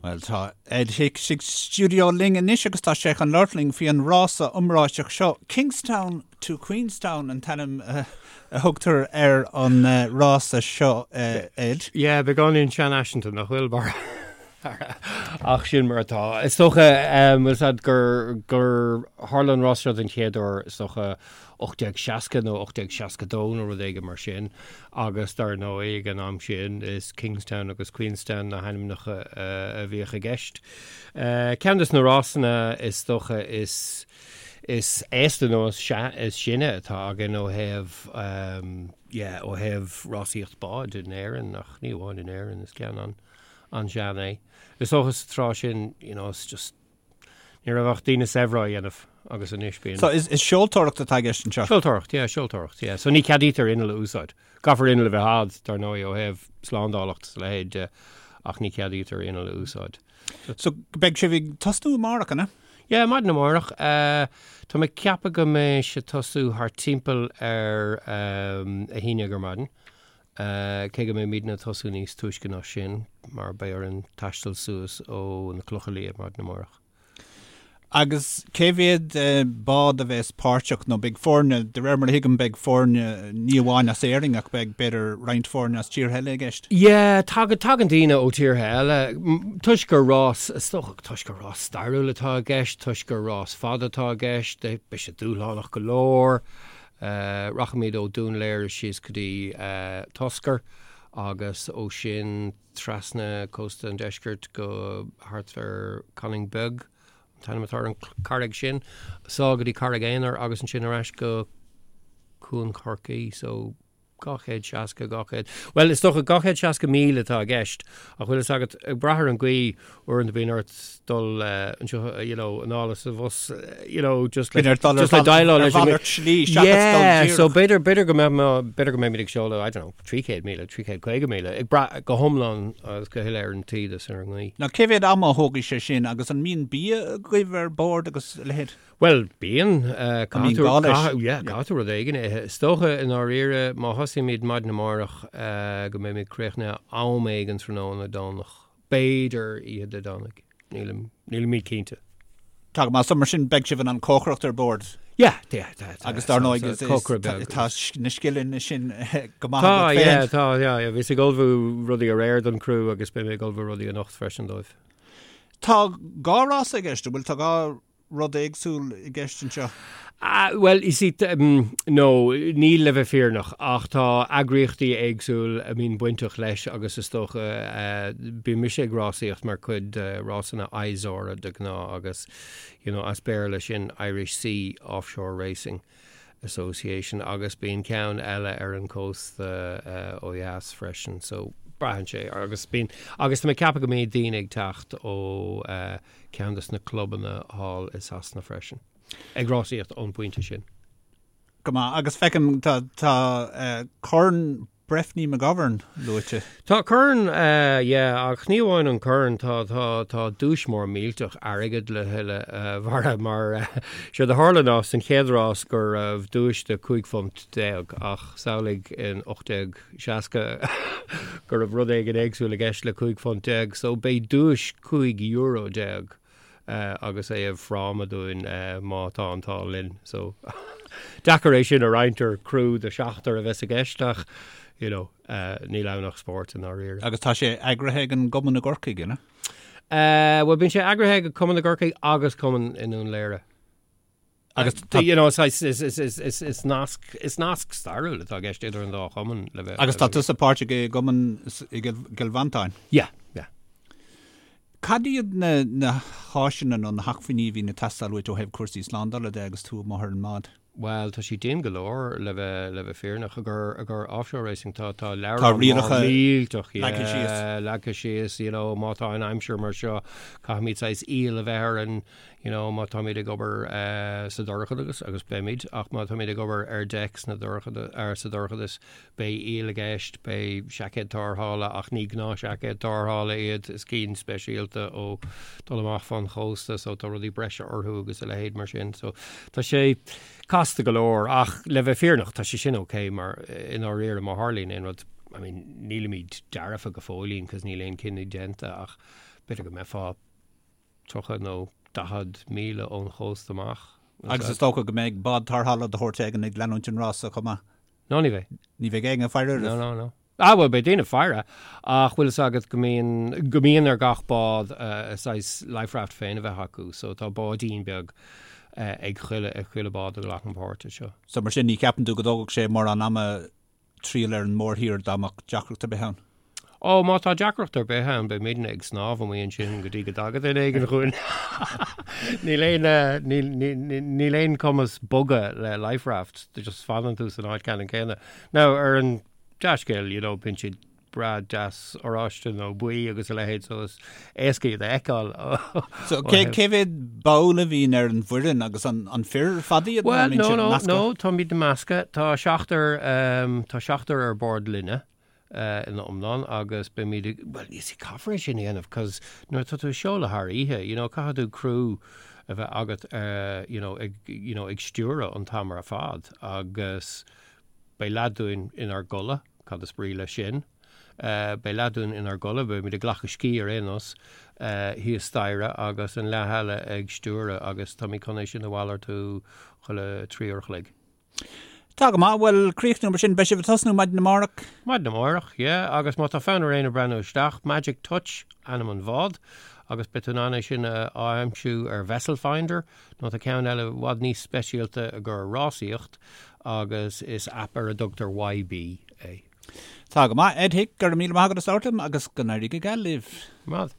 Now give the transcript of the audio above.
Bhuel, tá Ed Hicks sa stiúideo linn anois agus tá sé chun labhairt linn faoi an rása iomráiteach seo. Kingstown to Queenstown an t-ainm a thugtar ar an rása seo, Ed. Yeah, beagáinín seanfhaiseanta, nach bhfuil, Barra? Ach sin mar atá. Is dócha, bhfuil 's a'd, gur, gur tharla an rás seo den chéad uair, is dócha, 1860 nó 1862 nó rud éigin mar sin agus dar ndóigh ag an am sin is Kingstown agus Queenstown na hainmneacha a bhíodh i gceist. Ceann de na rásanna is dócha is is aosta nó is is sine atá againn ó thaobh yeah ó thaobh rásaíocht báid in Éirinn ach ní amháin in Éirinn is ceann an an-sean é. Is dócha sa tráth sin you know it's just Ní raibh ach daoine saibhre á dhéanamh agus anois bíonn. So is seoltóireacht atá i gceist anseo? Seoltóireacht, yeah, seoltóireacht, yeah. So ní ceadaítear inneall a úsáid. Caithfear inneall a bheith a'd, dar ndóigh, ó thaobh slándálacht is a leithéid de, ach ní ceadaítear inneall a úsáid. So beidh sibh ag tosnú amárach, an ea? Yeah, maidin amárach. Tá mé ag ceapadh go mbeidh sé ag tosú thart timpeall ar a 11 ar maidin. Cé go mbeimidne ag tosú níos túisce ná sin, mar beidh orainn taisteal suas ó na Clocha Liath maidin amárach. Agus cé mhéad bád a bheas páirteach, nó beidh foirne, de réir mar a thuigim, beidh foirne ní amháin as Éirinn ach beidh, b'fhéidir, roinnt foirne as tíortha eile i gceist? Yeah, tagann, tagann daoine ó tíortha eile, toisc gur rás, is dócha, toisc gur rás stairiúil atá i gceist, toisc gur rás fada atá i gceist, beidh sé dúshlánach go leor. Rachaimid ó Dún Laoghaire síos go dtí Toscar agus ó sin trasna cósta an deiscirt go thart ar Conaing Beag, an t-ainm atá ar an carraig sin, sall go dtí Carraig Aonair agus ansin ar ais go Cuan Chorcaí. So 260, 200, bhuel is dócha 260 míle atá i gceist ach bhfuil fhios agat, ag brath ar an gcaoi, uaireanta bíonn ort dul anseo, you know, anall is abhus, you know, just le, just le déileáil leis an mhalairt slí seachas dul díreach. So b'fhéidir, b'fhéidir go mbeidh, b'fhéidir go mbeimid ag seoladh, I don't know, 300,000, 350,000, ag brath go hiomlán agus go huile ar an taoide is ar an ngaoth. Now cé mhéad ama a thógfaidh sé sin agus an mbíonn bia agaibh ar bord agus a leithéid? Bhuel, bíonn. Caithfidh tú, yeah, caithfidh tú rud éigin a ithe. Is dócha, i ndáiríre, má thosaímid maidin amárach, go mbeimid críochnaithe am éigin tráthnóna Domhnach. B'fhéidir oíche Dé Domhnaigh. Nílim, nílimid cinnte. Tá go maith. So mar sin, beidh sibh in ann cócaireacht ar bord? Yeah, yeah, tá, tá. Agus dar ndóigh, is, is, tá na scileanna sin go maith agat féin. Tá, yeah, tá, yeah, yeah. Bhíos ag ullmhú rudaí aréir don criú agus beidh mé ag ullmhú rudaí anocht freisin dóibh. Tá dhá rása i gceist, an bhfuil? Tá dhá rud éagsúil i gceist anseo? Bhuel, you see, no, níl le bheith fírinneach, ach tá eagraíochtaí éagsúil a mbíonn bainteach leis agus is dócha, bíonn mise ag rásaíocht mar chuid de rásanna ISORA de ghnáth agus, you know, as Béarla sin Irish Sea Offshore Racing. Association agus bíonn ceann eile ar an cósta ó dheas freisin so braitheann sé agus bíonn agus tá mé ag ceapadh go mbeidh daoine ag teacht ó ceann des na clubanna thall i Sasana freisin ag rásaíocht ón bpointe sin. Go maith agus feicim tá tá Corn Breffni McGovern luaite. Tá corn, yeah, ach ní amháin an corn, tá, tá, tá duais mór millteach airgid le thuilleadh, a Bharra, mar séard a tharla ná san chéad rás go raibh duais de 15 phunt ach samhlaigh in 1860 go raibh rud éigin éagsúil i gceist le 15 phunt, so beidh duais €15 agus é i bhfráma dúinn má tá an t-ádh linn. So deacair é sin a roinnt ar criú de sheachtar a bheas i gceist ach you know níl ann ach spórt i ndáiríre. Agus tá sé eagraithe ag an gcumann i gCorcaigh, an ea? Bhuel bíonn sé eagraithe ag cumann i gCorcaigh agus cumann i nDún Laoghaire. Agus tá, you know, is, is, is, is, is, is nasc, is nasc stairiúil atá i gceist idir an dá chumann le bheith. Agus tá tusa páirteach i gcumann i gCill Mhantáin? Yeah, yeah. Cad iad na, na háiseanna nó na hacmhainní a bhíonn ag teastáil uait ó thaobh cúrsaí slándála de agus tú amuigh ar an mbád? Bhuel, tá sé dian go leor le bheith, le bheith fírinneach. I gcomhair, i gcomhair offshore racing tá, tá leabhrán mór millteach, yeah, síos. leagtha síos, you know, má tá an aimsir mar seo, caithfimid saghas iall a bheith orainn, you know, má táimid ag obair sa dorchadas, agus beimid, ach má táimid ag obair ar deic sna dorchada, ar sa dorchadas, beidh iall i gceist, beidh seaicéid tarrthála, ach ní gnáthsheaicéid tarrthála iad, is cinn speisialta ó dul amach fán chósta, so tá rudaí breise orthu agus a leithéid mar sin. So tá sé casta go leor, ach le bheith fírinneach, tá sé sin ok mar i ndáiríre má tharlaíonn aon rud, I mean, nílimid dearfa go fóillín, cos níl aon cinneadh déanta, ach. B'fhéidir go mbeifeá 30 nó 40 míle ón chósta amach. Agus is dócha go mbeidh bád tarrthála de shórt éigin ag leanúint an rása chomh maith. No, ní bheidh. Ní bheidh éinne ag faire oraibh? No, no, no. Ah, bhuel, beidh daoine ag faire, ach bhfuil fhios agat go mbíonn, go mbíonn ar gach bád a saghas life raft féin a bheith acu, so tá báidín beag ag chuile, ag chuile bád a ghlacann páirt anseo. So mar sin, ní cheapann tú go dtógfadh sé mórán ama triall ar an mórthír dá mbeadh deacracht ar bith ann? Ó, má tá deacracht ar bith ann, beimidne ag snámh amuigh ansin go dtí go dtaga duine éigin chugainn. Níl aon, níl, níl aon cumas bogadh le life raft, just fanann tú san áit ceannann céanna. Now, ar an dea-scéal, you know, bíonn siad breá deas oráiste nó buí agus a leithéid, so is éasca iad a fheiceáil. So, cé, cé mhéad ball a bhíonn ar an bhfoireann agus an, an fir ar fad iad? Well, no, no, no, táimid measctha. Tá seachtar, tá seachtar ar bord linne. ina iomlán agus beimid ag, bhuel, you see, caithfear é sin a dhéanamh cos nuair atá tú ag seoladh thar oíche, you know, caithfidh tú criú a bheith agat, you know, ag, you know, ag stiúradh an t-am ar fad agus beidh leath dúinn inár gcodladh, cad is brí leis sin? Beidh leath dúinn inár gcodladh, beimid ag glacadh scíth ar aon nós, thíos staighre agus an leath eile ag stiúradh agus táimid chun é sin a mhalartú chuile thrí uair a chloig. Tá go maith. Bhuel, críochnú mar sin. Beidh sibh ag tosnú maidin amárach? Maidin amárach, yeah. Agus má tá fonn ar éinne breathnú isteach, Magic Touch ainm an bhád agus beidh tú in ann é sin a aimsiú ar Vessel Finder nó tá ceann eile i bhfad níos speisialta i gcomhair rásaíocht agus is aip ar a dtugtar YB é. Tá go maith. Ed Hick, go raibh míle maith agat as labhairt liom agus go n-éirí go geal libh. Maith.